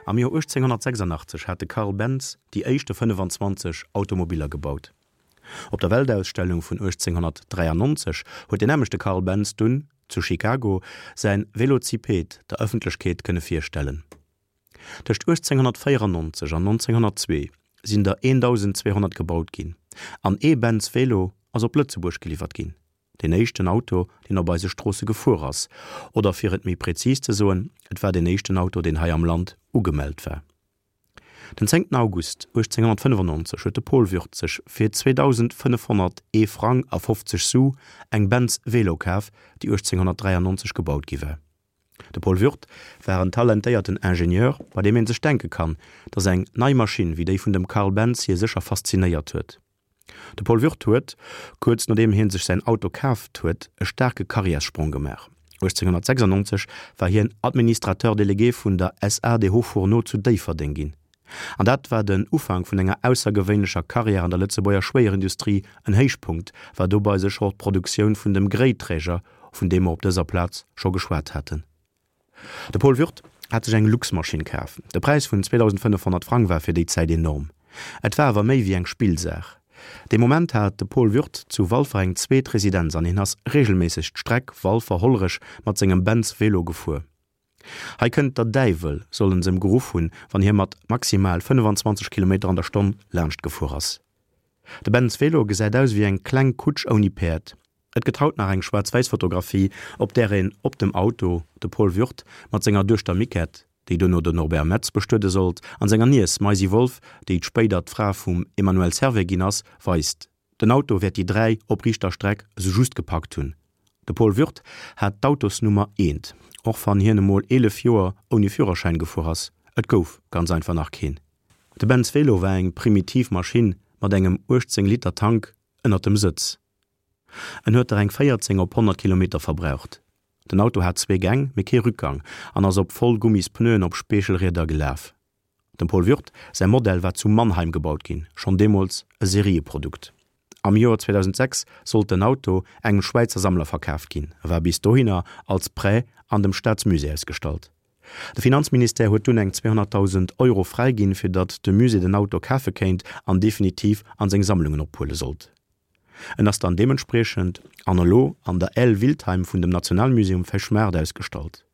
Am Joer 1886 hat de Carl Benz déi éischte 25 Automobiller gebaut. Op der Weltausstellung vun 1893 huet deen nämmlechte Carl Benz dunn, zu Chicago, säin Velociped der Ëffentlechkeet kënne virstellen. Tëscht 1894 an 1902 sinn der 1.200 gebaut ginn an ee Benz Velo ass op Lëtzebuerg geliwwert ginn, deen éischten Auto, deen op eise Stroosse gefuer ass, oder fir et méi prezis ze soen, et war deen éischten Auto, deen hei am Land ugemellt war. Den 10 August 1895 huet de Paul Würth sech fir 2.501 Frang a 50 Su eng Benz Velo kaf, déi 1893 gebaut gi war. De Paul Würth war en talentéierten Ingenieur, bei deem een sech denke kann, datt eng nei Maschinn wéi déi vun dem Carl Benz hie sécher faszinéiert huet. De Paul Würth huet, kuerz nodeem hie sech säin Auto kaaft huet, e staarke Karriärssprong gemaach. 1896 war hien Administrateur délégué vun der SA des Hauts-Fourneaux zu Déifferdeng ginn. An dat war den Ufank vun enger aussergewéinlecher Karriär an der Lëtzebuerger Schwéierindustrie. En Héichpunkt war dobei sécher och d'Produktioun vun dem Gréiträger, vun deem mer op dëser Plaz scho geschwat haten. De Paul Würth hat sech eng Luxmaschinn kaf. De Präis vun 2.500 Frang war fir déi Zäit enorm. Et war awer méi wéi eng Spillsaach. Dee Moment hat de Paul Würth zu Walfer eng zweet Residenz an hien ass regelméisseg d'Streck Walfer-Hollerech mat sengem Benz Velo gefuer. Hei kënnt der Däiwel, sollen s'em geruff hunn, wann hie mat maximal 25 Kilometer an der Stonn laanscht gefuer ass. De Benz Velo gesäit aus ewéi eng kleng Kutsch ouni Päerd. Et gëtt haut nach eng schwaarz-wäiss Fotografie, op där een op dem Auto de Paul Würth mat senger Duechter Miquette, déi duerno den Norbert Metz bestuede sollt, an senger Niess Maisy Wolff, déi spéider d'Fra vum Emmanuel Servais ginn ass, weist. Den Auto wäert déi 3 op riichter Streck esou just gepackt hunn. De Paul Würth hat d'Autosnummer eent, och wann hien emol 11 Joer ouni Führerschäin gefuer ass, et gouf ganz einfach nach keen. De Benz Velo war eng primitiv Maschinn mat engem 18 Liter Tank ënnert dem Sëtz. En huet der eng 14 op 100 Kilometer verbraucht. Den Auto hat zwee Gäng, mee kee Rückgang an ass op voll Gummispneuen op Speechelrieder gelaf. Dem Paul Würth säi Modell war zu Mannheim gebaut ginn, schonn deemools e Serieprodukt. Am Joer 2006 sollt den Auto engem Schwäizer Sammler verkaaft ginn, e war bis dohinner als Prêt an dem Staatsmusée ausgestallt. De Finanzministère huet dunn eng 200.000 Euro fräiginn, fir datt de Musée den Auto kafe kéint an definitiv an seng Sammlungen ophuele sollt. En ass dann deementspriechend an elo an der Aile Wiltheim vun dem Nationalmuseum Fechmaart ausgestallt.